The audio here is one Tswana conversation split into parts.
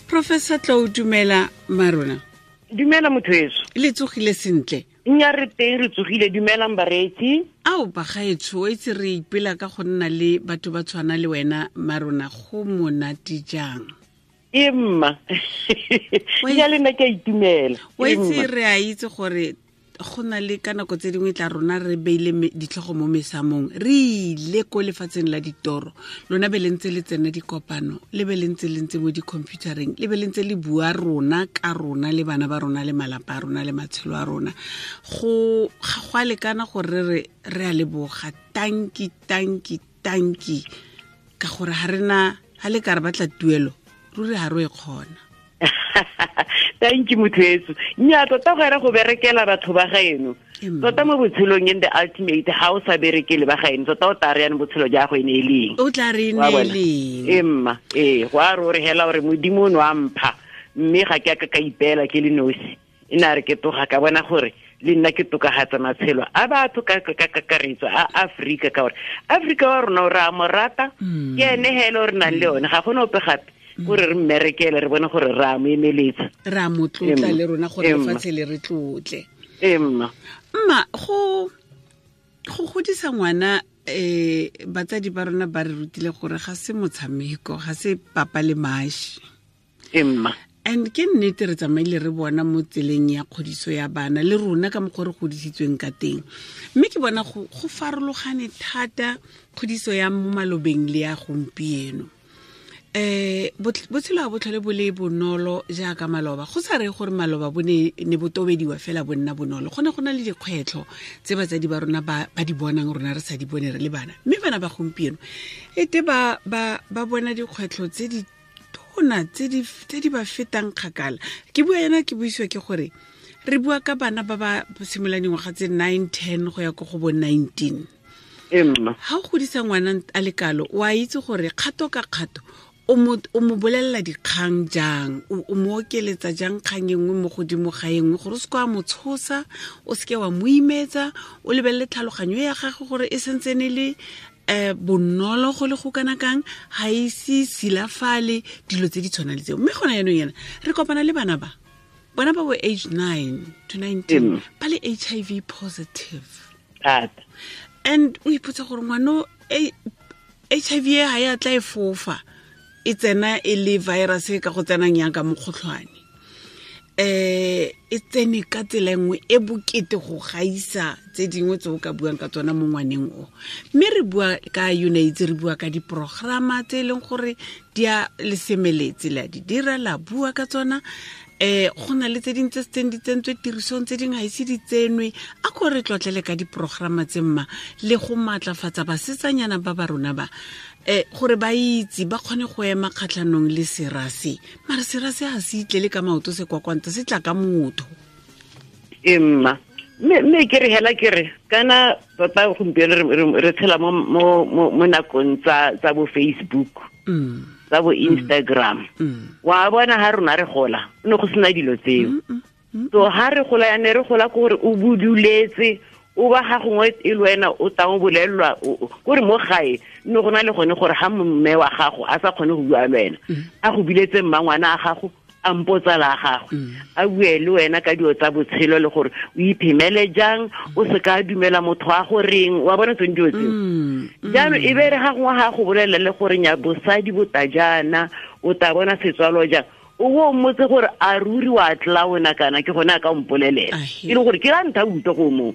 Professor Tlou, dumela marona. Dumela motho eso. Le tsogile sentle? Nya re teng, re tsogile. Dumelang bareetsi. Ao bagaetsho, o itse re ipela ka go nna le batho ba tshwana le wena marona, go monate jang. E mma. Ya le nna ke a itumela. O itse re a itse gore go na le ka nako tse dingwe tla rona re beile ditlhogo mo mesamong, re ile ko lefatsheng la ditoro, lona be le ntse le tsena dikopano, le be le ntse le ntse mo di-computereng, le be le ntse le bua rona ka rona le bana ba rona le malapa a rona le matshelo a rona. Go ga a lekana gore re re a leboga, tanki tanki tanki, ka gore ga rena ga le ka re batla tuelo ruri ga re e kgona. Thank you motho etso. Nya tota go era go berekela batho ba gaeno. Tota mo botshelong in the ultimate ha o sa berekele ba gaeno, tota o tla re yana botshelo ja go ene e leng. O tla re ene e leng. Emma, ee, go a re o re hela gore Modimo o ne wa mpha, mme ga ke a ka ka ipeela ke le nosi. E ne a re ke toga ka bona gore le nna ke tokagatsa matshelo a batho ka kakaretso a Afrika, ka gore Afrika wa rona o re a mo rata, ke ene hela o re nang le yone, ga gona ope gape gore re mmerekele re bone gore re a mo emeletsa, re a mo tlotla le rona gore lefatshe le re tlotle. Emma. Mma, go godisa ngwana, batsadi ba rona ba re rutile gore ga se motshameko, ga se papa le mashi. Emma. And ke nnete re tsamaile re bona mo tseleng ya kgodiso ya bana le rona ka mokgwa re godisitsweng ka teng, mme ke bona go farologane thata kgodiso ya mo malobeng le ya gompieno. Botshelo ga bo tlhole bo le bonolo jaaka maloba, go sa re gore maloba bo ne bo tobediwa fela bo nna bonolo, go ne go na le dikgwetlho tse batsadi ba rona ba di bonang rona re sa di bone re le bana, mme bana ba gompieno ete ba bona dikgwetlho tse di tona tse di ba fetang kgakala. Ke bua yana ke buisiwa ke gore re bua ka bana ba ba simololang dingwaga tse 9, 10 go ya ko go bo 19. Emma. Ha o godisa ngwana a le kalo, o a itse gore kgato ka kgato o mo bolelela dikgang jang, o mo okeletsa jang kgang e nngwe mo godimo ga e nngwe, gore o se ke wa mo tshosa, o se ke wa mo imetsa, o lebelele tlhaloganyo ya gagwe gore e sentsene le bonolo go le go kana kang, ga ise silafale, dilo tse di tshwana le tseo. Mme gona jaanong yana re kopana le bana ba bona ba bo age 9 to 19 ba le HIV positive. And o ipotsa gore ngwano HIV e ga ya tla e fofa, e tsena e le virus e ka go tsenang yang ka mokgotlhwane, e tsene ka tsela nngwe e bokete go gaisa tse dingwe tse o ka buang ka tsona mo ngwaneng o. Mme re bua ka UNAIDS, re bua ka diprograma tse e leng gore di a le semeletse, le a di dira, la bua ka tsona. Go na le tse dingwe tse setseng di tsentswe tirisong, tse dingwe ga ise di tsenwe. A ko re tlotlele ka diprograma tse mma, le go maatlafatsa basetsanyana ba ba rona ba, gore ba itse ba kgone go ema kgatlhanong le serase. Mara serase ga se itlele ka maoto se kwakwanta, se tla ka motho. Emma, mme ke re hela ke re kana tota gompieno re tshela mo nakong tsa bo Facebook, tsa bo Instagram. Wa bona ha rona re gola, ne go sena dilo tseo. So ha re gola ya ne re gola ke gore o buduletse, o ba ga gongwe e le wena o tang o bolelelwa, kore mo gae ne go na le gone gore ha mme wa gago a sa kgone go bua le wena, a go biletse mmangwana a gago, a mpotsala a gagwe, a bue le wena ka dilo tsa botshelo le gore o iphemele jang, o se ka dumela motho a goreng, wa bona tsone dilo tseo. Jaanong e be re ga gongwe ga go bolelela le gore nya bosadi bo ta jaana, o ta bona setswalo jang, o bo o mmotse gore a ruri wa tla wena kana ke gone a ka mpolelela, e le gore ke la ntha utlwa go moo.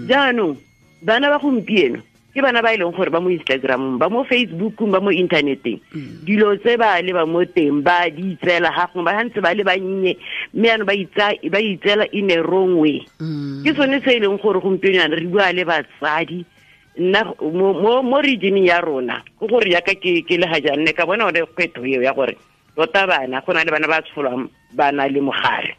Jaanong bana ba gompieno ke bana ba e leng gore ba mo Instagramong, ba mo Facebookong, ba mo inthaneteng, dilo tse ba le ba mo teng ba di itseela ga gongwe ba ntse ba le bannye, mme jaanong ba itseela in a wrong way. Ke sone se e leng gore gompieno jaana re bua le batsadi. Nna mo regioneng ya rona, ke gore jaaka ke le ga jaana, ne ka bona one kgwetlho eo ya gore tota bana, go na le bana ba tsholwang ba na le mogare,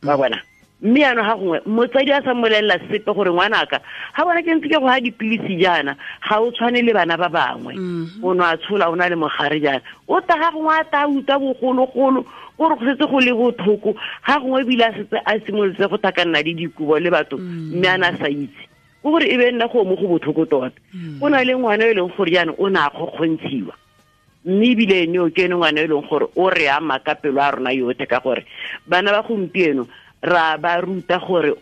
ba bona. Mme jaanong ga gongwe motsadi a sa mmolelela sepe gore ngwanaka ga bona ke ntse ke go ha dipilisi jaana, ga o tshwane le bana ba bangwe, o ne a tshola o na le mogare jaana, o ta ga gongwe a ta utlwa bogologolo gore go setse go le botlhoko, ga gongwe ebile a setse a simolotse go thakanna le dikobo le batho, mme a na sa itse. Ke gore e be nna go mo go botlhoko tota. Go na le ngwana e leng gore jaanong o ne a kgokgontshiwa. Mme ebile ene o ke ene ngwana e leng gore o re ama ka pelo a rona yotlhe, ka gore bana ba gompieno ra ba ruta gore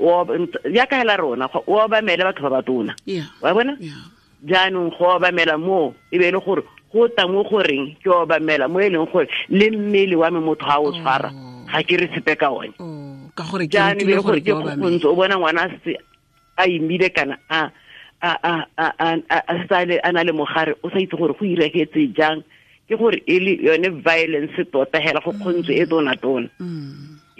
jaaka hela rona o obamele batho ba batona. Wa bona? Jaanong go obamela mo e be e le gore go tla mo goreng ke obamela mo e leng gore le mmele wa me motho ga o tshwara ga ke re sepe ka one. Ka gore ke rutile gore ke obamele. O bona ngwana a imile kana a sale a na le mogare, o sa itse gore go iregetse jang, ke gore e le yone violence tota hela go kgontse e tona tona.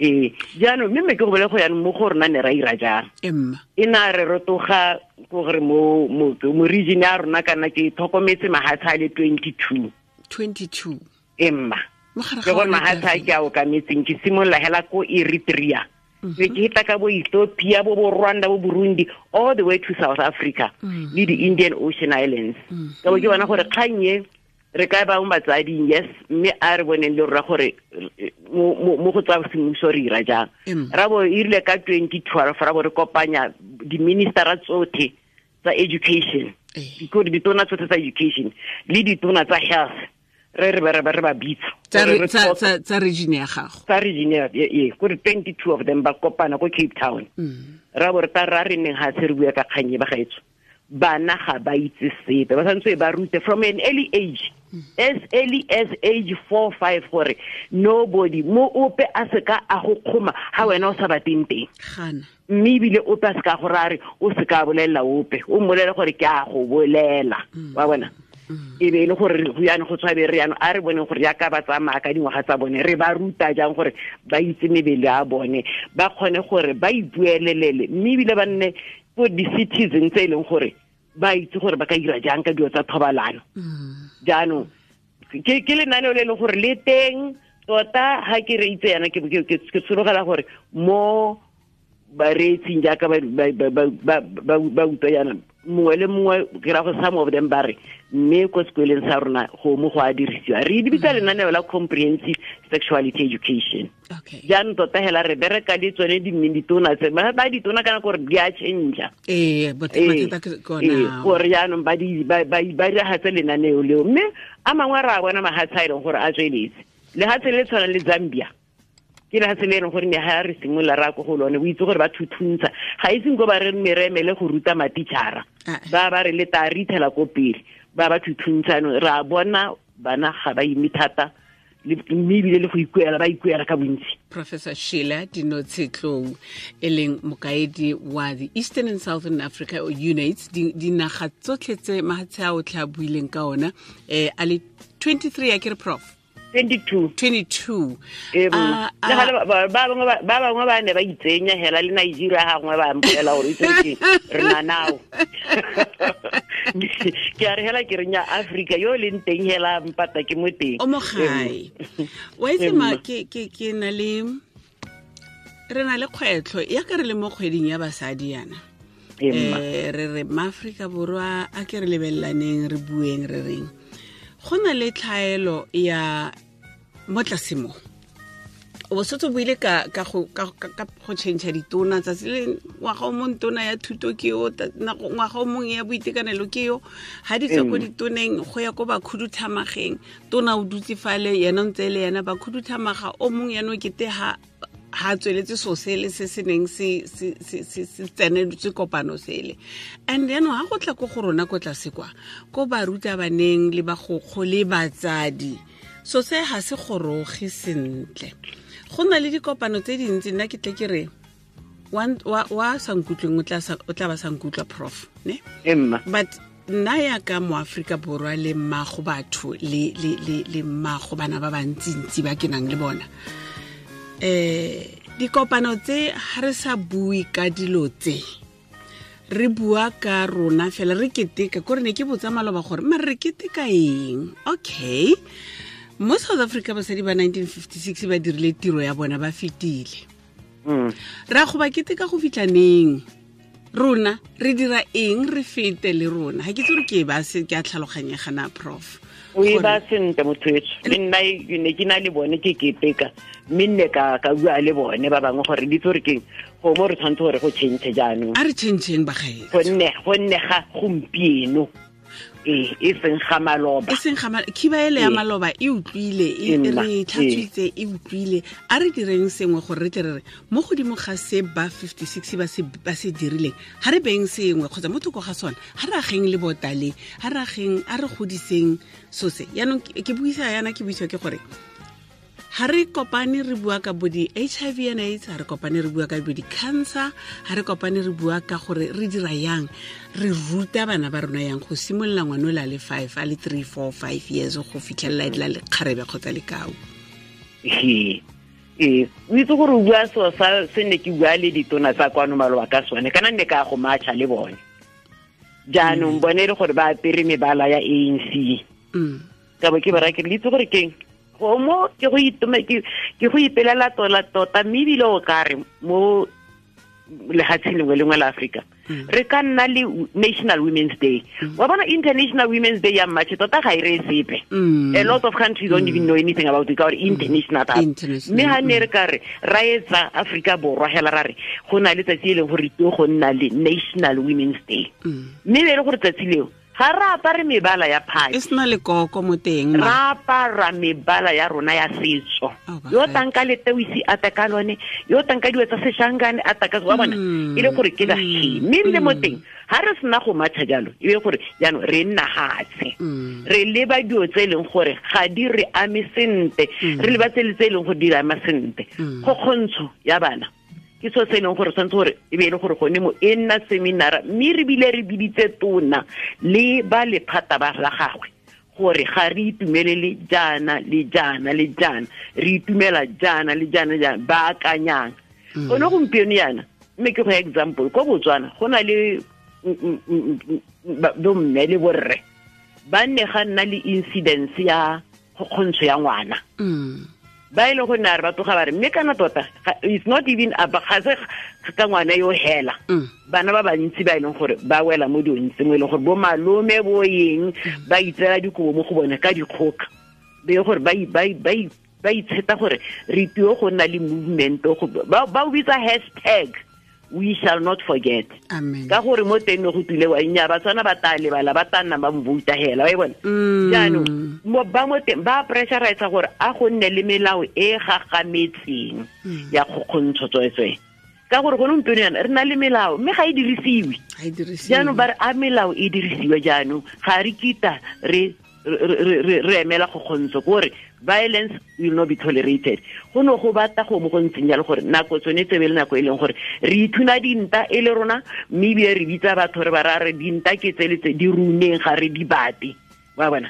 Jaanong mme ke go bole go yanong mo go rona ne ra ira jang. E na re rotoga gore mo region ya rona kana ke tlhokometse mahatshe a le 22. 22. Emma. Ke gore mahatshe a ke a okametseng, ke simolola hela ko Eritrea. Ke heta ka bo Ethiopia, bo Rwanda, bo Burundi, all the way to South Africa, le di Indian Ocean Islands. Ka bo ke bona gore kgang e re ka ba mo batsading, yes, mme a re boneng le rra gore mo go tsa semmuso re ira jang. Ra bo e rile ka 2012 ra bo re kopanya di-ministera tsotlhe tsa education, ditona tsotlhe tsa education le ditona tsa health, re ba bitsa tsa region ya gago, tsa region ya gore 22 of them ba kopana ko Cape Town. Ra bo re ta ra re neng ga se re bua ka kgang e ba gaetso, bana ga ba itse sepe, ba santse ba rute from an early age, as early as age 4 5, gore nobody mo ope a seka a go kgoma ha wena o sa bateng teng. Mme ebile ope a seka gore a re o seka bolelela ope, o mmolele gore ke a go bolela. Wa bona? E be e le gore go yana go tshwabe re yana a re boneng gore jaaka ba tsamaya ka dingwaga tsa bone, re ba ruta jang gore ba itse mebele ya bone, ba kgone gore ba ipuelelele, mme ebile ba nne ko di-citizen tse e leng gore ba itse gore ba ka dira jang ka dilo tsa thobalano. Jaanong ke lenaneo le e leng gore le teng tota, ga ke re itse yana ke tshologela gore mo bareetsing jaaka ba utlwa yana mongwe le mongwe, ke ra go some of them ba re mme ko sekoleng sa rona go mo go a dirisiwa, re di bitsa lenaneo la comprehensive sexuality education. Jaanong tota hela re bereka le tsone ditona tse ba ditona kana gore di a change. Gore jaanong ba diragatse lenaneo leo, mme a mangwe re a bona mahatshe a e leng gore a tsweletse. Lehatshe le tshwanang le Zambia, ke lehatshe le e leng gore ne ga re simolola ra ko go lone, o itse gore ba thuthuntsha, ga iseng ko ba re meremele go ruta matitšhara, ba re le ta re ithela ko pele, ba thuthuntsha. Re a bona bana ga ba ime thata, mme ebile le go ikuela, ba ikuela ka bontsi. Professor Sheila Dinotshe-Tlou, e leng mokaedi wa the Eastern and Southern Africa UNAIDS, dinaga tsotlhe tse mahatshe a o tla buileng ka ona, a le 23 a ke re prof? 22. 22. Ba bangwe ba ne ba itsenya hela le Nigeria gangwe ba mpolela gore itse ke re na nao. Ke a re hela ke re nya Africa yo leng teng hela mpata ke mo teng. O mo gae. Wa itse ma ke na le re na le kgwetlho ya ka re le mo kgweding ya basadi yana. Re re ma-Afrika Borwa a ke re lebelelaneng, re bueng, re reng. Go na le tlhaelo ya mo tlase mo. O setse o buile ka go change ditona tsatsi le ngwaga o mong tona ya thuto ke yo, ngwaga o mong ya boitekanelo ke yo, ha di tswa ko ditoneng go ya ko bakhuduthamageng, tona o dutse fale yena o ntse le yena bakhuduthamaga o mong yana o kete ha tsweletse so sele se se neng se tseneletse kopano sele. And yaanong ha go tla ko go rona ko tlase kwa ko barutabaneng le bagokgo le batsadi, so se ga se goroge sentle. Go na le dikopano tse dintsi, nna ke tle ke re wa sa nkutlweng o tla ba sa nkutlwa prof, ne? But nna ya ka mo Afrika Borwa le mmago batho le mmago bana ba bantsintsi ba ke nang le bona, dikopano tse ha re sa bue ka dilo tse, re bua ka rona fela, re keteka kore ne ke botsa maloba gore mare re keteka eng. Okay, mo South Africa basadi ba 1956 ba dirile tiro ya bona, ba fetile. Ra go ba keteka go fitlha neng? Rona re dira eng re fete le rona? Ha ke itse gore ke ba se ke a tlhaloganyega na prof. O e ba sentle motho etsho, le nna ne ke na le bone ke keteka, mme nne ka bua le bone ba bangwe gore di itse gore keng go mo re tshwanetse gore go change jaanong. A re changeng bagaetsho, gonne ga gompieno E seng ga maloba. E seng ga khiba ele ya maloba e utlwile, e re tlhatswitse, e utlwile. A re direng sengwe gore re tle re re mo godimo ga se ba 56 ba se dirileng, ha re beng sengwe kgotsa mo thoko ga sona, ha re ageng le botale, ha re ageng, a re godiseng so se. Yaanong ke buisa yana, ke buisiwa ke gore ha re kopane re bua ka bo di-HIV and AIDS, ha re kopane re bua ka bo di-cancer, ha re kopane re bua ka gore re dira yang, re ruta bana ba rona yang go simolola ngwana o le a le 5, a le 3, 4, 5 years go fitlhelela e la lekgarebe kgotsa lekau. Ee, o itse gore o bua seo sa se ne ke bua le ditona tsa kwano maloba ka sone, kana nne ka go matcha le bone. Jaanong bone e le gore ba apere mebala ya ANC. Ka bo ke ba raya ke re, le itse gore keng? Go mo ke go itume ke go ipelela tola tota, mme ebile o ka re mo lefatsheng lengwe lengwe la Afrika re ka nna le National Women's Day. Wa bona International Women's Day ya March tota ga e re sepe. A lot of countries don't even know anything about it, ka gore international thata. Mme ha ne re ka re ra etsa Afrika Borwa hela ra re go na le tsatsi e leng gore tlo go nna le National Women's Day. Mme e le gore tsatsi leo ga re apare mebala ya party, e sena lekoko mo teng, ra apara mebala ya rona ya setso. Yo tanka letewisi a ta ka lone, yo tanka dilo tsa seshangane a ta ka wa bona, e le gore ke la mme ebile mo teng ha re sena go matcha jalo, e be gore jaanong re nna hatshe, re leba dilo tse e leng gore ga di re ame sentle, re leba tse e leng gore di re ama sentle. Kgokgontsho ya bana ke so se e leng gore tshwanetse gore e be e le gore gone mo e nna seminara, mme re bile re biditse tona le ba lephata ba la gagwe gore ga re itumelele jaana le jaana le jaana, re itumela jaana le jaana jaana, ba akanyang. Gone gompieno yana, mme ke go example, ko Botswana go na le bomme le borre ba nne ga nna le incidence ya kgokgontsho ya ngwana. Ba e le go nna re ba tloga ba re mme kana tota it's not even ga se ka ngwana yo hela. Bana ba bantsi ba e leng gore ba wela mo dilong tse mo e leng gore bo malome bo eng ba itseela dikobo mo go bone ka dikgoka, be gore ba itsheta gore re tio go nna le movement, ba o bitsa hashtag we shall not forget. Amen. Ka gore mo teng go tule wa nya ba tswana ba ta lebala, ba ta nna ba mvouta hela, wa e bona. Jaanong ba mo teng ba pressurize gore a go nne le melao e gagametseng ya kgokgontsho tswetswe. Ka gore gone gompieno yana re na le melao mme ga e dirisiwe. Jaanong ba re a melao e dirisiwe, jaanong ga re kita re emela kgokgontsho, gore violence will not be tolerated. Go no go batla go mo go ntseng jalo gore nako tsone tsebe le nako e leng gore re ithuna dinta e le rona, mme ebile re bitsa batho re ba ra re dinta ke tse le tse di runeng, ga re di bate. Wa bona?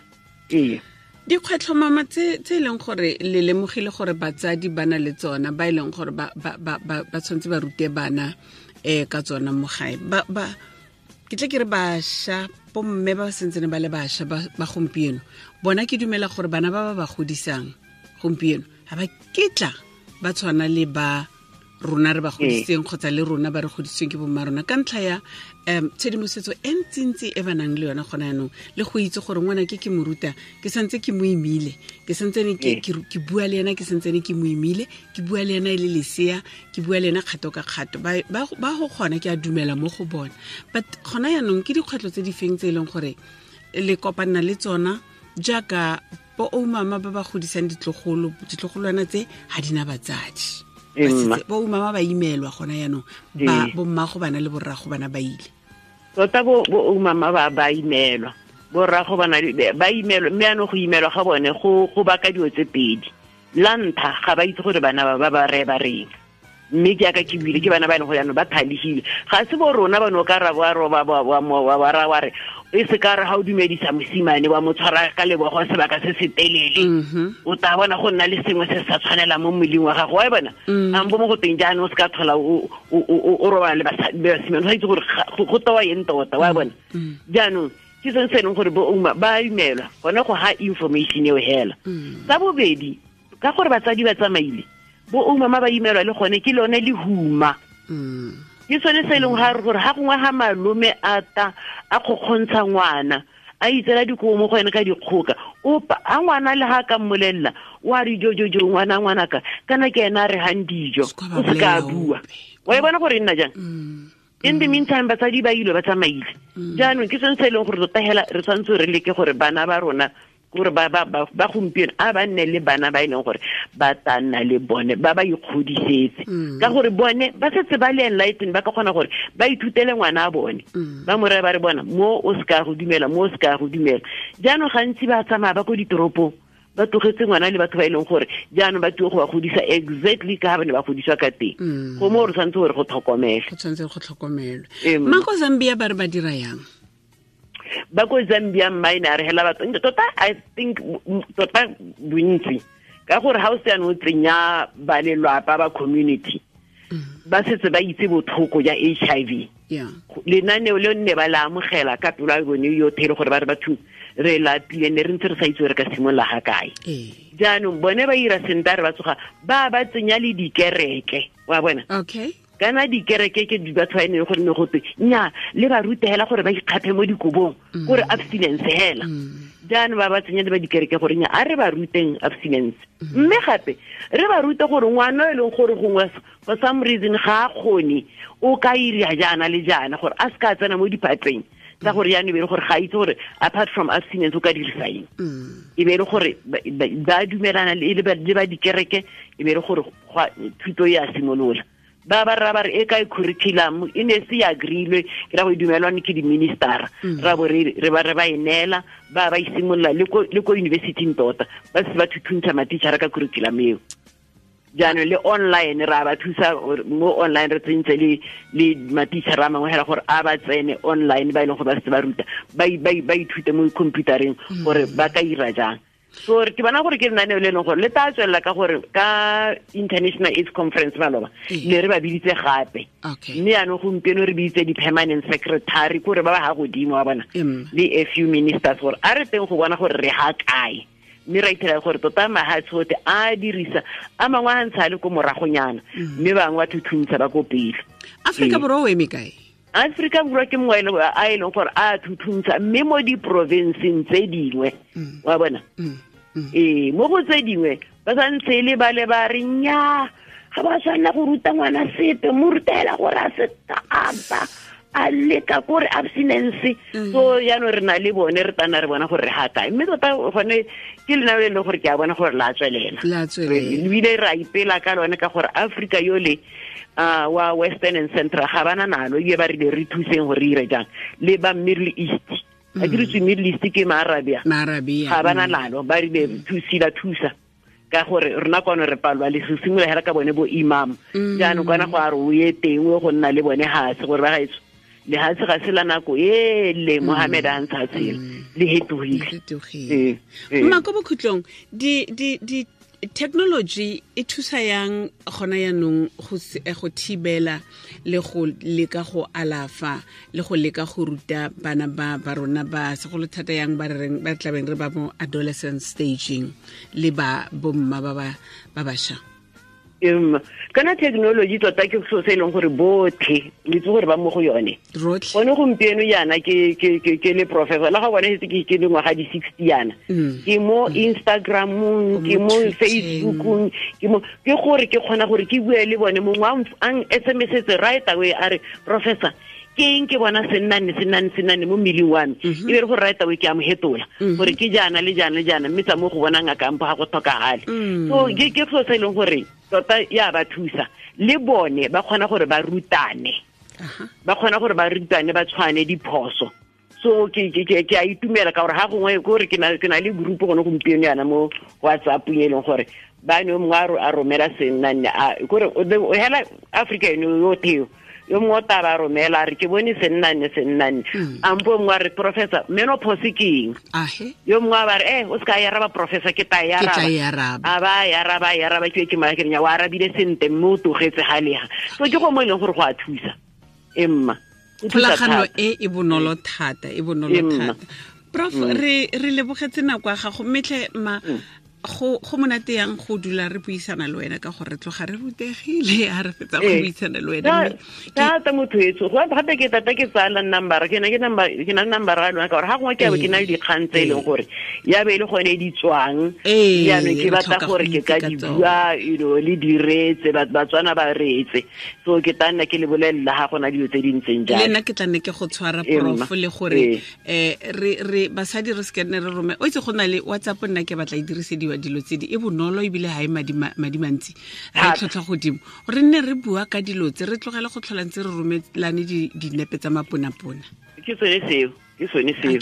Ee. Dikgwetlho mama tse e leng gore le lemogile gore batsadi ba na le tsona, ba e leng gore ba tshwanetse ba rute bana ka tsona mo gae. Ba ke tle ke re bašwa, bomme ba sentsene ba le bašwa ba gompieno, bona ke dumela gore bana ba ba godisang gompieno ga ba ketla ba tshwana le ba rona re ba godisitseng kgotsa le rona ba re godisitsweng ke bomma rona, ka ntlha ya tshedimosetso e ntsintsi e ba nang le yona gona yanong, le go itse gore ngwana ke mo ruta, ke santse ke mo imile, ke santsene ke bua le ena, ke santsene ke mo imile, ke bua le ena e le lesea, ke bua le ena kgato ka kgato. Ba go kgona, ke a dumela mo go bona. But gona yanong ke dikgwetlho tse di feng tse e leng gore le kopana le tsona jaaka bo oumama ba ba godisang ditlogolwana tse ga di na batsadi? Bo mama ba imelwa gona yanong, ba bo mmago bana le borrago bana ba ile. Tota bo mama ba imelwa, borrago bana ba imelwa, mme ano go imelwa ga bone go baka dilo tse pedi. La ntlha, ga ba itse gore bana ba ba re ba reng, mme ke aka ke buile ke bana ba e leng gore jaanong ba thalegile. Ga se bo rona ba no ka ra wa roba wa ra wa re e se ka re ga o dumedisa mosimane wa mo tshwara ka lebogo sebaka se se telele, o tla bona go nna le sengwe se sa tshwanelang mo mmeleng wa gago, wa e bona. Ampo mo go teng jaanong o se ka tlhola o robala le basimane, o sa itse gore go tewa eng tota, wa e bona. Jaanong ke sone se e leng gore bo ouma ba imelwa gone go ha information eo hela. Sa bobedi, ka gore batsadi ba tsamaile, bo oumama ba imelwa le gone ke lone lehuma. Ke sone se e leng gore ga gongwe ga malome a ta a kgokgontsha ngwana, a itseela dikobo mo go ene ka dikgoka, opa a ngwana le ga ka mmolelela wa re jojojo ngwana ngwanaka kana ke ena a re gang dijo, o se ka bua. Wa e bona gore e nna jang? In the meantime, batsadi ba ile ba tsamaile. Jaanong ke sone se e leng gore tota hela re tshwanetse re leke gore bana ba rona, gore ba ba ba gompieno a ba nne le bana ba e leng gore ba tla nna le bone, ba ba ikgodisetse, ka gore bone ba setse ba le enlightened, ba ka kgona gore ba ithutele ngwana a bone, ba mo raya ba re bona mo o se ka go dumela, mo o se ka go dumela. Jaanong gantsi ba tsamaya ba ko ditoropong, ba tlogetse ngwana le batho ba e leng gore jaanong ba tio go ba godisa exactly ka ga ba ne ba godiswa ka teng. Go mo re tshwanetse gore go tlhokomelwe. Go tshwanetse go tlhokomelwe. Mma, ko Zambia ba re ba dira yang? Ba ko Zambia mine a re hela batho tota, I think tota bontsi, ka gore ha o se o tsenya ba lelwapa ba community, ba setse ba itse botlhoko ja HIV. Lenaneo le nne ba la amogela ka pelo ya bone yotlhe, le gore ba re batho re lapile, ne re ntse re sa itse gore re ka simolola ga kae. Jaanong bone ba ira sentle, re ba tsoga ba ba tsenya le dikereke, wa bona. Kana dikereke ke di batho ba ene gore ne go twe nya le ba rute hela gore ba ikgaphe mo dikobong, gore abstinence hela. Jaanong ba ba tsenya le ba dikereke gore nya a re ba ruteng abstinence, mme gape re ba rute gore ngwana e leng gore gongwe for some reason ga a kgone, o ka ira jaana le jaana gore a se ka tsena mo diphatleng tsa gore jaanong e be le gore ga itse gore apart from abstinence o ka dirisa eng. E be le gore ba dumelana le ba dikereke, e be le gore thuto e a simolola. Ba ba ra ba re e kae curriculum, e ne se ya agreelwe, ke ra go e dumelwane ke di-ministera, ra bo re ba re ba e neela, ba ba isimolola le ko university-ing tota, ba se ba thuthuntsha matitjhara ka curriculum eo. Jaanong le online ra ba thusa mo online, re tsentse le matitjhara a mangwe hela gore a ba tsene online, ba e leng gore ba setse ba ruta, ba ithute mo computereng gore ba ka ira jang. So ke bona gore ke lenaneo le leng gore le tla tswelela, ka gore ka International AIDS Conference maloba ne re ba biditse gape, mme jaanong gompieno re biditse di-permanent secretary, kore ba ba ga godimo wa bona, le a few ministers, gore a re teng go bona gore re ga kae. Mme ra ithela gore tota mahatshe otlhe a dirisa a mangwe a ntsha le ko moragonyana, mme bangwe ba thuthuntsha ba ko pele. Afrika Borwa o eme kae? Afrika Borwa ke mongwe a e leng gore a thuthuntsha, mme mo diprovinceng tse dingwe, wa bona. Mo go tse dingwe ba santse le ba le ba re nya ga ba tshwanela go ruta ngwana sepe, mo rutela gore a se ba a leka kore abstinence. So jaanong re na le bone, re tana re bona gore re ga kae, mme tota gone ke lenaneo le leng gore ke a bona gore la tswelela, ebile re a ipela ka lone, ka gore Africa yole wa Western and Central ga bana nalo, ebile ba rile re thuseng gore re ire jang le ba Middle East. A ke re Middle East ke Maarabia, ga bana nalo, ba rile thusila thusa, ka gore rona kwano re palwa le se simolola hela ka bone bo imam. Jaanong kwana go a re o ye teng o go nna le bone hase, gore ba gaetso le hase ga se la nako e le Mohammed a ntsha tsela, le hetogile. Mma, ko bokhutlong di technology e thusa yang gona yanong go thibela le go leka go alafa le go leka go ruta bana ba rona ba segolo thata yang ba reng ba tlabeng re ba mo adolescent staging le ba bomma ba ba basha? Kana technology tota ke so se e leng gore botlhe le itse gore ba mo go yone. Gone gompieno yana ke le professor, la ga bone setse ke dingwaga di 60 yana, ke mo Instagramong, ke mo Facebookong, ke mo ke gore ke kgona gore ke bue le bone. Mongwe a SMS-etse right away a re professor, ke eng ke bona sennane mo mmeleng wa me, e be re gore right away ke a mo hetola gore ke jaana le jaana le jaana, mme tsa mo go bona ngaka mpo ga go tlhokagale. So ke so se e leng gore tota ya ba thusa, le bone ba kgona gore ba rutane, ba kgona gore ba rutane ba tshwane diphoso. So ke a itumela ka gore ga gongwe gore ke na le group gone gompieno yana mo WhatsApp e leng gore ba ne mongwe a romela sennane, gore hela Africa eno yotlhe yo mongwe o tla ba romela a re ke bone sennane, ampo mongwe a re professor menopause ke eng, yo mongwe a ba re o se ka ya araba professor, ke tla e araba, a ba ya araba ya araba, ke ke mara ke re wa arabile sentle mme o tlogetse ga lega. So ke go mo e leng gore go a thusa emma kgolagano e bonolo thata, e bonolo thata. Prof, re lebogetse nako ya gago, mme tlhe ma Go monate yang go dula re buisana le wena, ka gore re tloga re rutegile ha re fetsa go buisana le wena. Thata motho etso go gape ke tata ke tsaya number ke na ke number ke na number ya lona, ka gore ga gongwe ke ke na le dikgang tse e leng gore ya be e le gone di tswang, jaanong ke batla gore ke ka di bua, you know, le diretse Batswana ba reetse, so ke tla nna ke le bolelela ga gona dilo tse di ntseng jalo. Le nna ke tla nne ke go tshwara, prof, le gore re basadi re se nne re rome. O itse go na le WhatsApp, nna ke batla e dirisediwa dilo tse di e bonolo, ebile ga e madi mantsi, re tlhotlhwa godimo, re nne re bua ka dilo tse, re tlogele go tlhola ntse re romelane dinepe tsa maponapona. Ke sone seo, ke sone seo,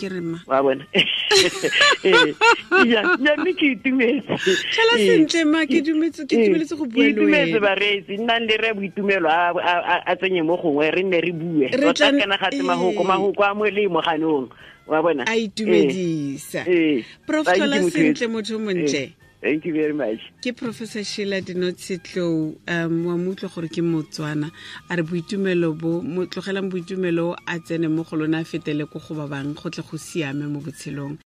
wa bona. Ya mme ke itumetse. Tlhola sentle ma, ke dumetse, ke itumeletse go bua le wena. Ke itumetse bareetsi, nnang le re Boitumelo a tsenye mo gongwe, re nne re bue tota, kana ga tse mahoko a molemo ganong, wa bona. A itumedisa. Prof, tlhola sentle, motho montle. Thank you very much. Ke Professor Sheila Dinotshetlou, wa mo utlwa gore ke Motswana, a re boitumelo bo mo tlogelang, boitumelo a tsene mo go lona, a fetele ko go ba bang, go tle go siame mo botshelong.